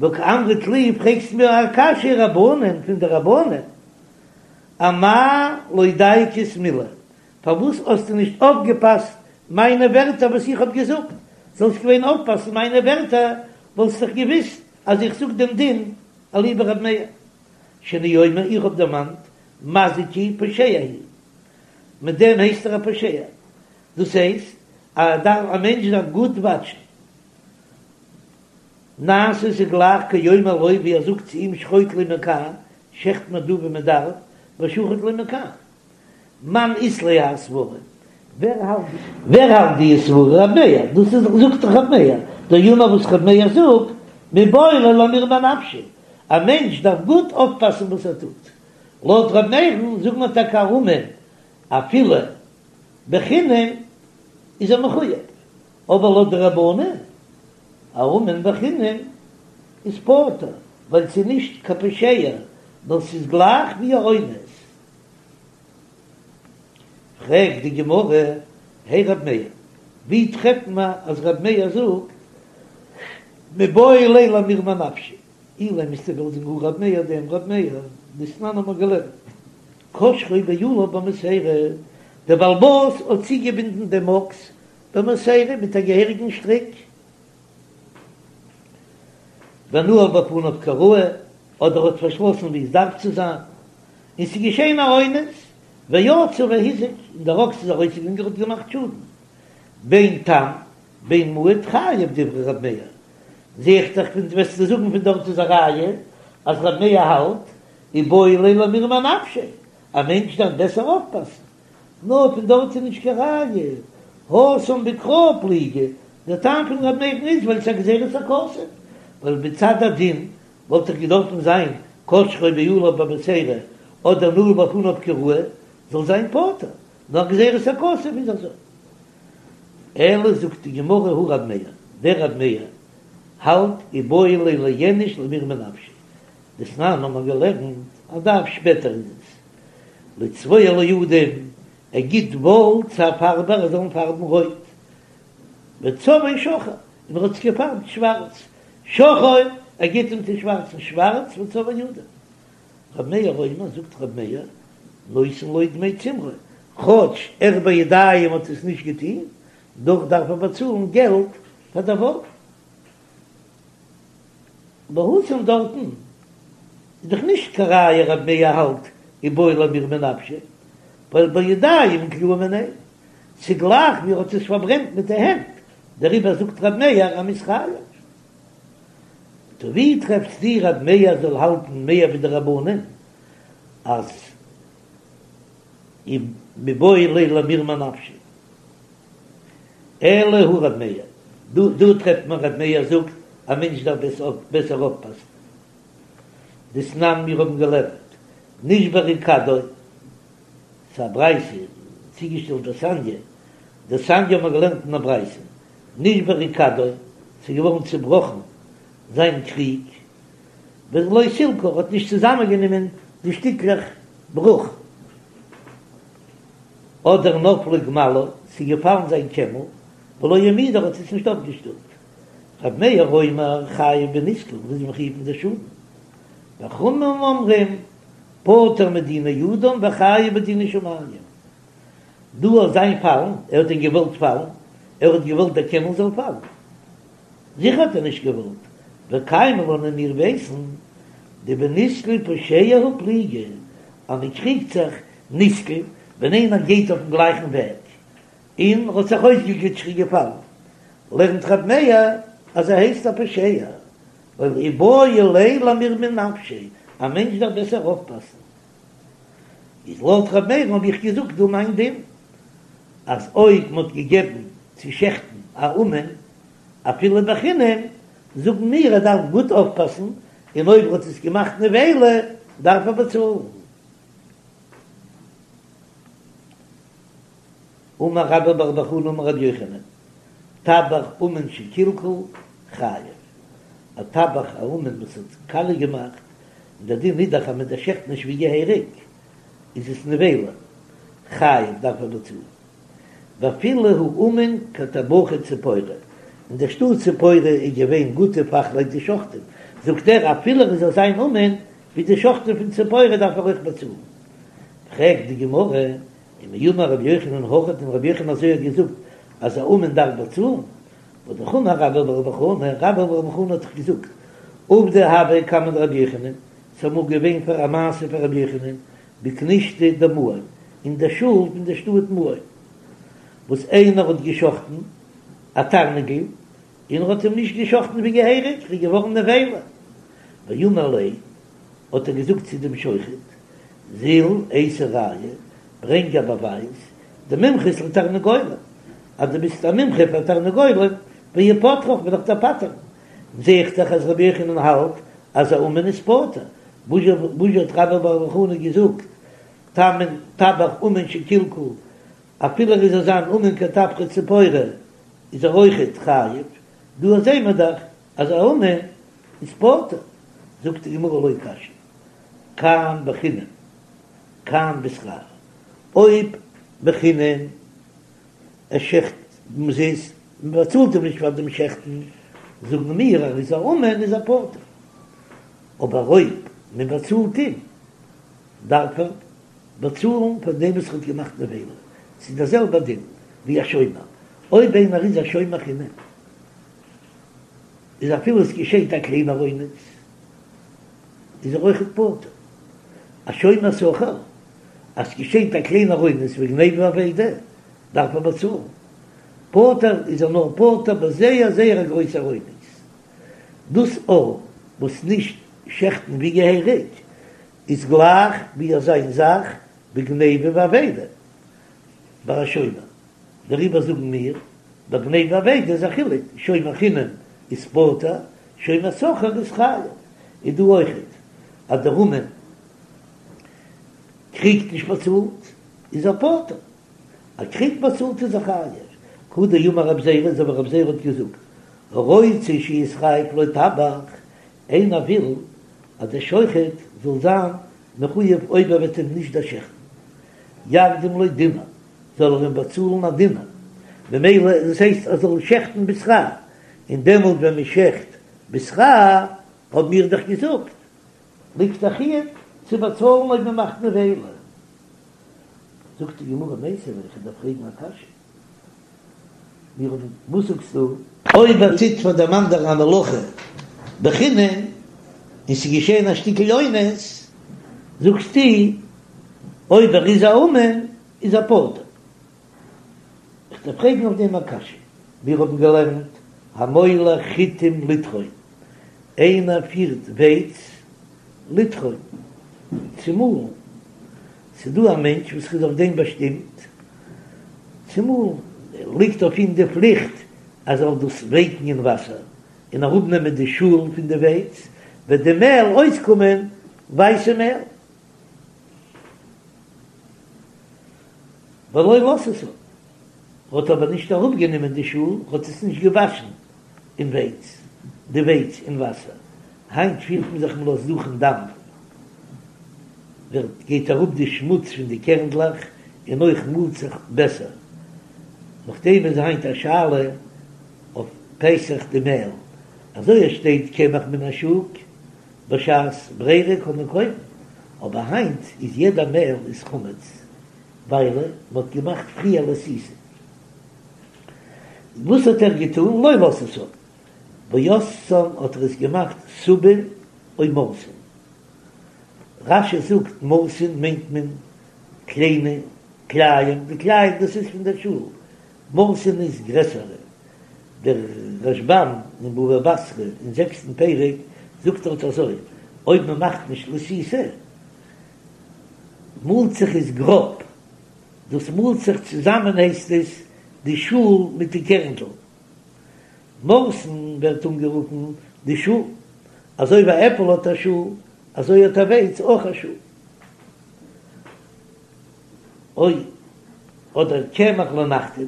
וקאמרת לי, פרעגסט מיר א קשיא רבנן פון די רבנן, אמאי לא דייקת מילי, פארוואס האסטו נישט אויפגעפאסט מיינע ווערטער וואס איך האב געזאגט? זאלסט געווען אויפפאסן מיינע ווערטער וואלסט דאך געוויסט אז איך זאג דעם דין אליבא רב מאיר שאני אומר איך האב דערמאנט מזיק הוא פושע הוא מיט דעם הייסט ער א פושע דאס הייסט אז א מענטש דארף גוט וואטשן נעשה ס'איז גלייך כאומר לו ווי ער זאגט צו אים שחוט לי מכאן שעכט מיר דא ווי מען דארף ושחט לו מכאן. מאן אית ליה האי סברא? ווער האלט ווער האלט די סברא? רב מאיר, דאס איז זאגט דאך רב מאיר, דאמר וואס רב מאיר זאגט, מיבעי ליה למירמי אנפשיה, א מענטש דארף גוט אויפפאסן וואס ער טוט, לויט רב מאיר'ן זאגט מען טאקע א אומן אפילו בחינם איז ער מחויב, אבער לויט די רבנן א אומן בחינם איז פטור, ווייל ס'איז נישט קיין פושע, נאר ס'איז גלייך ווי א אונס. פרעגט די גמרא, הי רב מאיר, ווי טרעפט מען אז רב מאיר זאגט מיבעי ליה למירמי אנפשיה? אילימא וועסטו וועלן זאגן הא רב מאיר דעם רב מאיר, דתנן האט מען געלערנט קשרו בעליו במוסרה, דער בעל הבית האט צוגעבינדן דעם אקס במוסרה מיט א געהעריגן שטריק, ונעל בפניו כראוי, אדער האט פארשלאסן ווי עס דארף צו זיין, און ס'איז געשען א אונס, ויצא והזיק, און דער אקס איז ארויסגעגאנגען און האט געמאכט שאדן, בין תם בין מועד חייב דברי ר' מאיר, זע איך דאך פון וועסטו זאגן פון דארט איז א ראיה אז ר' מאיר האלט איבעי ליה למירמי אנפשיה, א מענטש דארף בעסער אויפפאסן, נאר פון דארט איז נישט קיין ראיה, התם בקראי פליגי, דער טעם פון ר' מאיר'ן איז ווייל ס'איז א גזירת הכתוב, ווייל מצד הדין וואלט דאך געדארפן זיין קשרו בעליו במוסרה אדער נעל בפניו כראוי זאל זיין פטור, נאר גזירת הכתוב איז אזוי. אלא זאגט די גמרא הא רב מאיר, דער רב מאיר האלט איבעי ליה לאיניש למירמי נפשיה, דתנן האט מען געלערנט א דף שפעטער איז עס לצבוע לו אדום, ער גיט וואל צו א פארבער ער זאל אים פארבן רויט, וצבעו שחור, און ער האט עס געפארבט שווארץ, שחור, ער גיט אים צו שווארצן שווארץ, וצבעו אדום. ר' מאיר אומר, זאגט ר' מאיר, נותן לו דמי צמרו, כאטש ער בידיים האט עס נישט געטון, דאך דארף ער באצאלן געלט פאר דער וואל. והתם דארטן איז דאך נישט קיין ראיה ר' מאיר האלט איבעי למירמי נפשיה, ווייל בידיים קלאי מיניה, ס'איז גלייך ווי ער האט עס פארברענט מיט די הענט, דעריבער זאגט ר' מאיר אז מ'איז חייב. טא ווי טרעפסטו ר' מאיר זאל האלטן מער ווי די רבנן אז מיבעי ליה למירמי נפשיה? אלא הא ר' מאיר, דא דא טרעפט מען ר' מאיר זאגט א מענטש דארף בעסער אויפפאסן. דתנן מיר האבן געלערנט נשברה כדו, ס'איז א ברייתא צוגעשטעלט דתניא, דתניא האבן מיר געלערנט אין א ברייתא, נשברה כדו, ס'איז געווארן צובראכן זיין קריג, ולא סילקה, האט נישט צוזאמענגענומען די שטיקלעך ברוך, אדער נפלה גמלו, ס'איז געפאלן זיין קעמל, ולא העמידה, האט עס נישט אויפגעשטעלט. ר' מאיר אומר חייב בנזקין, איז מחויב אין די שאדן. וחכמים אומרים פטור מדיני אדם וחייב בדיני שמים. דא אויף זיין פאלן, ער האט דען געוואלט פאלן? ער האט געוואלט דער קעמל זאל פאלן? זיכער האט ער נישט געוואלט. וקיימא לן און מיר ווייסן דבנסקל פושע הוא פליגי, אז מען קריגט זיך נסקל ווען איינער גייט אויפן גלייכן וועג און האט זיך אויסגעגליטשט און געפאלן, לערנט רב מאיר אז ער הייסט א פושע, ווייל איבעי ליה למירמי נפשיה, א מענטש דארף בעסער אויפפאסן. איז לויט ר' מאיר'ן האב איך געזאגט דא מיין דין, אז אויב מ'האט געגעבן צו שעכטן א אומן אפילו בחינם, זאגן מיר ער דארף גוט אויפפאסן, און אויב ער האט עס געמאכט נבילה. דארף ער באצאלן. אמר רבה בר בר חנה אמר רבי יוחנן, טבח אומן שקלקל חייב, א טבח א אומן וואס האט קאליע געמאכט, און דער דין איז דאך אז מען דערשעכט נישט ווי געהעריג, איז עס נבילה, חייב דארף ער באצאלן. ואפילו הוא אומן כטבחי ציפורי, אין דער שטאט ציפורי איז געווען גוטע פאכלייט די שוחטים, זאגט ער אפילו ער זאל זיין אומן ווי די שוחטים פון ציפורי דארף ער אויך באצאלן. פרעגט די גמרא, ומי אמר רבי יוחנן הכי האט דען רבי יוחנן אזוי האט געזאגט אז א אומן דארף באצאלן? והא אמר רבה בר בר חנה, רבה בר בר חנה האט דאך געזאגט, עובדא הוה קמיה דרבי יוחנן, ס'איז אמאל געווען פאר א מעשה פאר רבי יוחנן, בכנישתא דמעון, אין דער שול פון דער שטאט מעון, וואס איינער האט געשחטן א תרנגול, און ער האט אים נישט געשחטן ווי געהעריג, איז געווארן נבילה. ואמר ליה, האט ער געזאגט צו דעם שוחט, זיל אייתי ראיה, ברענג א באווייז, דמומחית לתרנגולים, אז דו ביסט א מומחה פאר תרנגולים, ואיפטרך וועל איך דיר פטר'ן. זע איך דאך אז רבי יוחנן האלט אז א אומן איז פטור, וואס האט רבה בר בר חנה געזאגט, תמן טבח אומן שקלקל, אפילו ער איז אזא אומן כטבחי ציפורי איז ער אויכעט חייב, דא זעהן מיר דאך אז א אומן איז פטור, זאגט די גמרא לא קשיא, כאן בחינם כאן בשכר, אויב בחינם ער שעכט אומזיסט, מען באצאלט אים נישט פאר דעם שעכטן, זאגן מיר אז ער איז א אומן איז ער פטור, אבער אויב מען באצאלט אים דארף ער באצאלן פאר דעם וואס ער האט געמאכט נבילה, ס'איז דער זעלבער דין ווי א שומר, אויב איינער איז א שומר חינם איז אפילו עס געשעט א קליינער אונס איז ער אויכעט פטור, א שומר שכר אז ס'געשעט א קליינער אונס ווי גניבה ואבידה דארף ער באצאלן, פטור איז ער נאר פטור ביי זייער זייער א גרויסער אונס, דאס א וואס נישט שעכטן ווי געהעריג איז גלייך ווי אזא זאך ווי גניבה ואבידה ביי א שומר, דעריבער זאגן מיר ביי גניבה ואבידה איז א חילוק, שומר חינם איז פטור, שומר שכר איז חייב, איז דא אויכעט אז דער אומן קריגט נישט באצאלט איז ער פטור, ער קריגט באצאלט איז ער חייב, כדאמר רב זירא אזוי ווי רב זירא האט געזאגט הרוצה שיתחייב לו טבח, איינער וויל אז דער שוחט זאל זיין מחויב אויב ער וועט אים נישט דערשעכטן, יקדים לו דינר, זאל ער אים באצאלן א דינר, ממילא דאס הייסט ער זאל שעכטן בשכר, און דעמאלט ווען מען שעכט בשכר האבן מיר דאך געזאגט ליגט א חיוב צו באצאלן אויב מען מאכט נבילה. זאגט די גמרא מיתיבי, איך דארף פרעגן א קשיא, מיר האבן, וואס זאגסטו? אויב ער טוט פאר דעם אנדערן א מלאכה בחינם און ס'איז געשען א שטיקל אונס, זאגסטו אויב ער איז א אומן איז ער פטור. איך דארף פרעגן אויף דעם א קשיא, מיר האבן געלערנט המוליך חיטים לטחון, איינער פירט ווייץ לטחון, צו מאלן, ס'איז דא א מענטש וואס איז אויף דעם באשטימט צו מאלן, ליגט אויף אים די פליכט אז ער זאל דאס ווייקן אין וואסער און אראפנעמען די שאל פון די ווייץ, וועט די מעל אויסקומען ווייסע מעל. ולא לתתן, האט אבער נישט אראפגענומען די שאל, האט עס נישט געוואשן אין ווייץ, די ווייץ אין וואסער, היינט פירט מען זיך מ'לאזט דורכן דאמף, ווערט גייט אראפ די שמוץ פון די קערנדלעך און אויך מאלט זיך בעסער, נאכדעם איז היינט א שאלה אויף פסח די מעל, אזוי עס שטייט קמח מן השוק בשעת ברירה קען מען קויפן, אבער היינט איז יעדע מעל איז חמץ ווייל מען האט געמאכט פריער לתיתה. וואס האט ער געטון? לא לתתן ועשאן האט ער עס געמאכט סובין או מורסין. רש"י זאגט מורסין מיינט מען קליינע כלאים, די כלאים דאס איז פון דער שאל, מורסין איז גרעסערע. דער רשב"ם אין בבא בתרא אין זעקסטן פרק זאגט דארט אזוי, אויב מען מאכט נישט לתיתה מאלט זיך עס גראב, דאס מאלט זיך צוזאמען הייסט עס די שאל מיט די קערנדל. מורסין ווערט אנגערופן די שאל, אזוי ווי א עפל האט א שאל. אזוי האט א ווייץ אויך א שאדן. או אדער קמח לנחתום,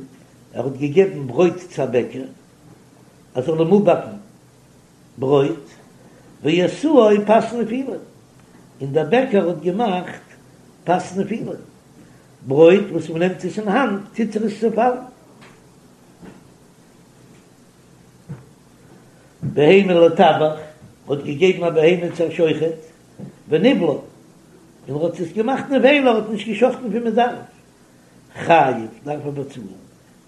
ער האט געגעבן ברויט צו א בעקער ער זאל אים אפבאקן ברויט, ועשאו פת נפילים, און דער בעקער האט געמאכט פת נפילים, ברויט וואס מען נעמט עס אין האנט טוט זיך עס צעפאלן. בהמה לטבח, האט געגעבן א בהמה צו א שוחט, וניבלה, און ער האט עס געמאכט נבילה, ער האט נישט געשחטן ווי מען דארף, חייב, דארף ער באצאלן,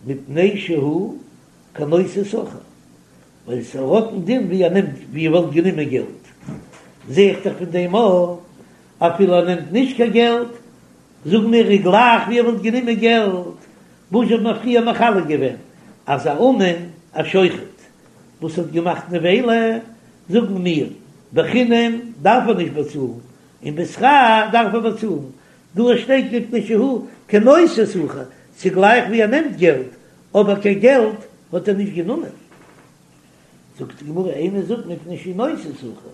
מפני שהוא כנושא שכר, ווייל עס האט א דין ווי ער נעמט ווי ער וואלט גענומען געלט, זע איך דאך פון דעם אויך, אפילו ער נעמט נישט קיין געלט, זאגן מיר איז גלייך ווי ער וואלט גענומען געלט, וואס האט מען פריער מחלק געווען אז א אומן א שוחט וואס האט געמאכט נבילה, זאגן מיר בחינם דארף ער נישט באצאלן, און בשכר דארף ער באצאלן, דא שטייט מפני שהוא כנושא שכר, ס'איז גלייך ווי ער נעמט געלט, אבער קיין געלט האט ער נישט גענומען. זאגט די גמרא, אימא זאג מפני שהוא נושא שכר,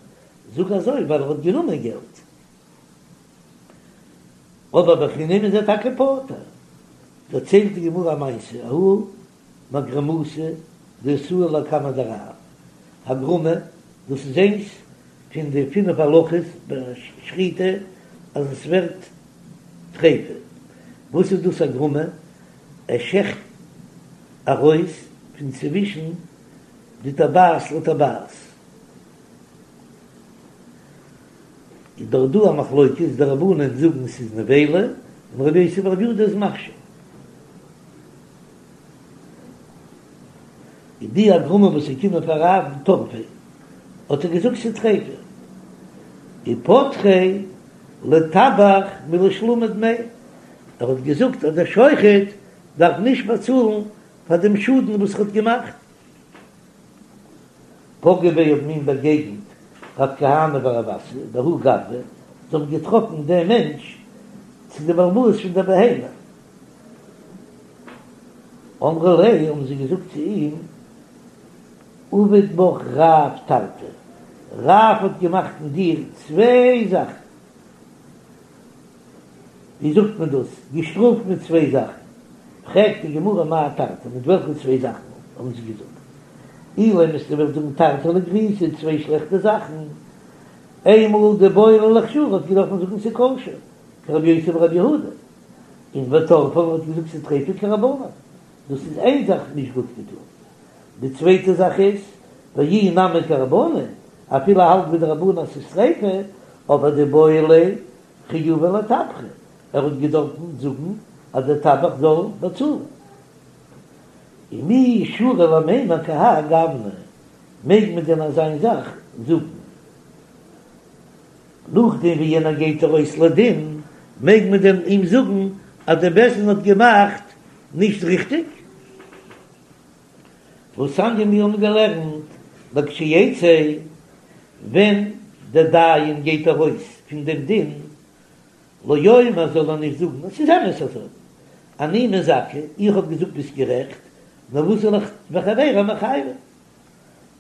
זאג אזוי ווייל ער האט גענומען געלט. אבער בחינם איז ער טאקע פטור. דערציילט די גמרא א מעשה, ההוא מגרמתא דאתאי לקמיה דרב, הגרמה, דאס איז איינס פון די פינף הלכות ביי שחיטה אז עס ווערט טריפה, וואס איז דאס הגרמה? ער שעכט ארויס פון צווישן די טבעת לטבעת. איז דאך דא א מחלוקת, די רבנן זאגן ס'איז נבילה, און רבי יוסי ברבי יהודה איז מכשיר. איז די הגרמה וואס איז געקומען פאר רב טרפיה, האט ער געזאגט ס'איז טריפה. ופטריה לטבח מלשלומי דמי, ער האט געזאגט אז דער שוחט דארף נישט באצאלן פאר דעם שאדן וואס ער האט געמאכט. פגעו ביה האבן אים באגעגנט רב כהנא ורב אסי בההוא גברא, זיי האבן געטראפן דעם מענטש צו די בעל הבית פון דער בהמה. אמרו ליה, האבן זיי געזאגט צו אים, עביד בך רב תרתי, רב האט געמאכט אין דיר צוויי זאכן. ווי זאגט מען דאס? געשטראפט מיט צוויי זאכן. פרעגט די גמרא מאי תרתי, מיט וועלכע צוויי זאכן האבן זיי געזאגט? אילימא וועסטו וועלן זאגן תרתי לגריעותא, צוויי שלעכטע זאכן. איינמאל דאיבעי ליה לאכשורי האט געדארפן זאגן ס'איז כשר, כרבי יוסי ברבי יהודה, און וטרפה האט געזאגט ס'איז טריפה כרבנן. דאס איז איין זאך נישט גוט געטון. די צווייטע זאך איז, ואי נמי כרבנן, אפילו ער האלט ווי די רבנן אז ס'איז טריפה, אבער דאיבעי ליה חיובא לטבחא, ער האט געדארפן זאגן אז דער טבח זאל באצאלן. ומי שרי למימר כי האי גוונא, מעג מען דען אזיין זאך זאגן? נאכדעם ווי יענער גייט ארויס לדין, מעג מען דען אים זאגן אז דער בית דין האט געמאכט נישט ריכטיג? והתניא מיר האבן געלערנט לכשיצא, ווען דער דיין גייט ארויס פון דעם דין, לא יאמר זאל ער נישט זאגן עס איז אמת אזוי, אני מזכה, איך האב געזאגט ביסט גערעכט, נאר וואס זאל איך וחברי מחייבי,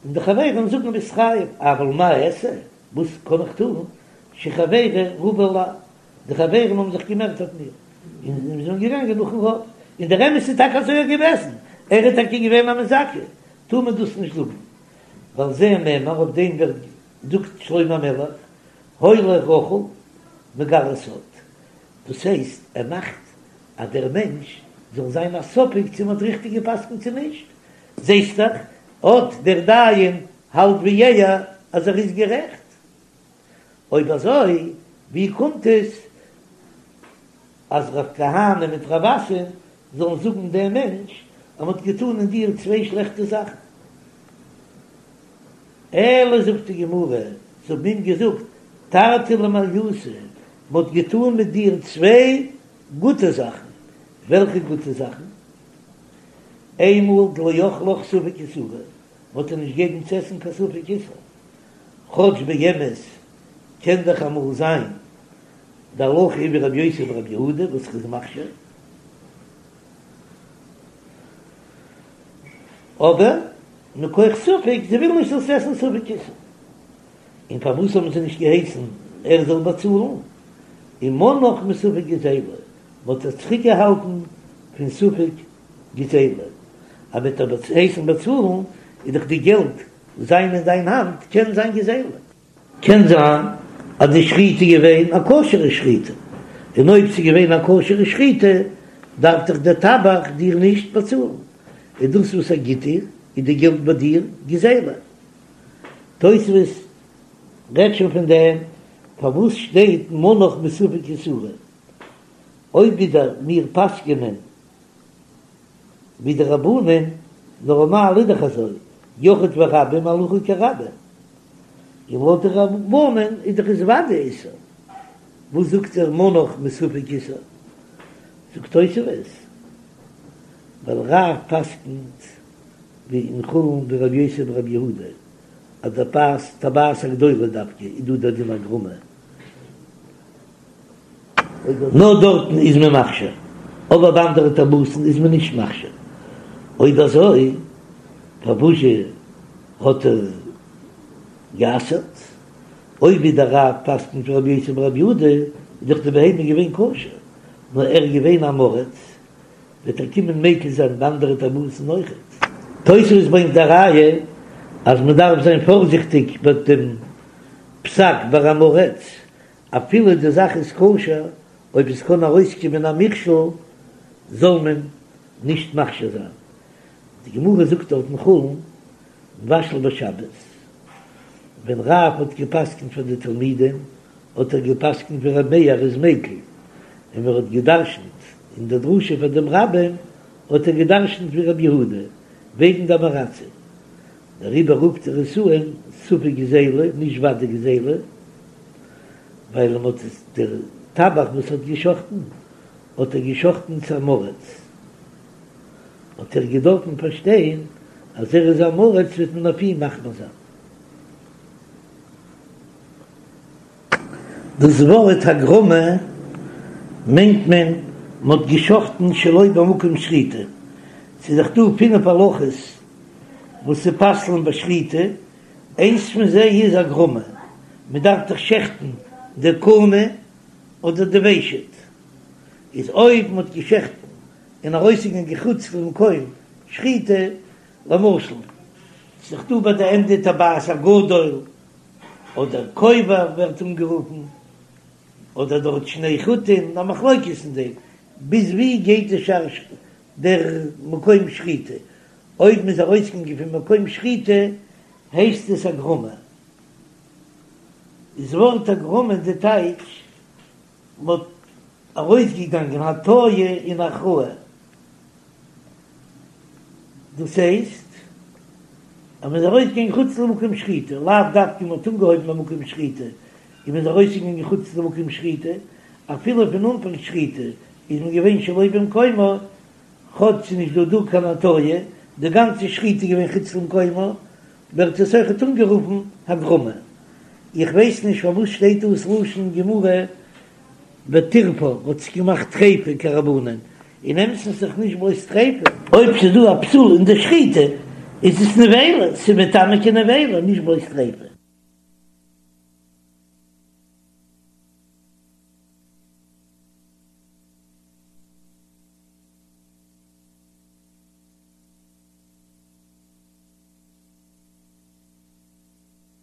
און די חברים זאגן ביסט חייב, אבל מה אעשה, וואס קען איך טון, שחברי רבו עלי, די חברים האבן זיך געמערט אויף מיר, און זיי זענען געגאנגען נאכן רוב, און דער אמת איז טאקע אזוי געוועזן, ער איז טאקע געווען א מזכה, טאר מען דאס נישט זאגן, ועל זה נאמר, אויף דעם ווערט זאגט שלמה המלך, הולך רכיל מגלה סוד, דאס הייסט ער מאכט אז דער מענטש זאל זיין א ספק צו מען האט ריכטיג גע'פסק'נט צו נישט, זעסט דאך אט דער דיין האלט ווי ער אז ער איז גערעכט. אויב אזוי ווי קומט עס אז רב כהנא מיט רב אסי זאלן זאגן דעם מענטש אז מ'האט געטאן אין דיר צוויי שלעכטע זאכן? אלא זאגט די גמרא, זיי האבן אים געזאגט תרתי למעליותא, מ'האט געטאן מיט דיר צוויי גוטע זאכן, וועלכע גוטע זאכן? איינמאל דלא אכלך ספק איסורא, מ'האט דיר נישט געגעבן צו עסן קיין ספק איסור, כאטש באמת קען דאך אמאל זיין די הלכה איז ווי רבי יוסי ברבי יהודה וואס איז מכשיר, אבער מכח ספק, זיי ווילן נישט זאלסט עסן ספק איסור, און פארוואס האבן זיי נישט געהייסן? ער זאל באצאלן, ומנאך מספק גזילה, מ'האט עס צוריקגעהאלטן פון ספק גזילה, אז מ'וועט דיר הייסן באצאלן איז דאך די געלט זיין אין דיין האנט קען זיין גזילה. קען זיין אז די שחיטה איז געווען א כשר'ע שחיטה, און אויב ס'איז געווען א כשר'ע שחיטה דארף דאך דער טבח דיר נישט באצאלן, און דאס וואס ער גיט דיר איז די געלט ביי דיר גזילה. תוספות רעדט שוין פון דעם, פארוואס שטייט מנאך מספק איסורא? אויב ווידער מיר פסק'ענען ווי די רבנן, נארמאל איז דאך אזוי, יחיד ורבים הלכה כרבים, און לויט די רבנן איז דאך עס וודאי איסור, וואס זאגט ער מנאך מספק איסור? זאגט תוספות, ווייל רב פסק'נט ווי אין חולין ווי רבי יוסי ברבי יהודה, אז די פאת טבעת הגדולה דווקא איז דא דער דין הגרמא. נאר דארטן איז מען מכשיר, אבער ביי אנדערע טבעות'ן איז מען נישט מכשיר. אויב אזוי פארוואזשע האט ער גע'אסר'ט? אויב ווי דער רב פסק'נט ווי רבי יוסי ברבי יהודה, איז דאך די בהמה געווען כשר, נאר ער איז געווען עם הארץ, וועט ער קומען מקיל זיין ביי אנדערע טבעות'ן אויכעט. תוספות ברענגט א ראיה אז מען דארף זיין פארזיכטיג ביי דעם פסק ביי עם הארץ, אפילו די זאך איז כשר, אויב עס קען ארויסקומען א מכשול זאל מען נישט מכשיר זיין. די גמרא זאגט דארט אין חולין, מבשל בשבת, ווען רב האט גע'פסק'נט פאר די תלמידים האט ער גע'פסק'נט ווי ר' מאיר איז מיקל, און ווען ער האט גע'דרש'נט אין די דרשה פאר דעם רבים האט ער גע'דרש'נט ווי ר' יהודה וועגן די עם הארצים, דעריבער רופט ער עס אן ספק גזילה, נישט ודאי גזילה. ווייל מען האט עס דער טבח וואס האט געשחטן האט ער געשחטן צו עם הארץ, האט ער געדארפן פארשטיין אז ער איז עם הארץ וועט מען אויף אים מחמיר זיין. דאס ווארט הגרמא מיינט מען מען האט געשחטן שלא במקום שחיטה, ס'איז דאך דא פינף הלכות וואס ס'פסל'ן בשחיטה, איינס פון זיי איז הגרמא, מען דארף דאך שעכטן די קנה אדער די ושט, איז אויב מען האט געשעכטן און ארויסגעגאנגען חוץ למקום שחיטה, למשל ס'איז דאך דא ביי די ענדע טבעת הגדול אדער כובע ווערט אנגערופן, אדער דארט שני חוטין, א מחלוקת אין דעם ביז ווי גייט די שער דער מקום שחיטה, אויב מ'איז ארויסגעגאנגען פון מקום שחיטה הייסט עס הגרמא. איז ווארט הגרמא די טייטש מ'האט ארויסגעגאנגען הטיה און הכרעה. דאס הייסט אז מ'איז ארויסגעגאנגען חוץ למקום שחיטה, לאו דווקא מ'האט אנגעהויבן במקום שחיטה און מ'איז ארויסגעגאנגען חוץ למקום שחיטה, אפילו פון אנפאנג שחיטה איז מען געווען שלא במקומה, כאטש ס'איז נישט דא דא קיין הטיה, די גאנצע שחיטה איז געווען חוץ למקומה, ווערט עס אויכעט אנגערופן הגרמא. איך ווייס נישט פארוואס שטייט דא ס'לשון גמרא וטירפא האט זיך געמאכט טריפה כרבנן, אין אמת'ן איז דאך נישט בלויז טריפה. אויב ס'איז דא א פסול אין די שחיטה איז עס נבילה, ס'איז מטמא כנבילה, נישט בלויז טריפה.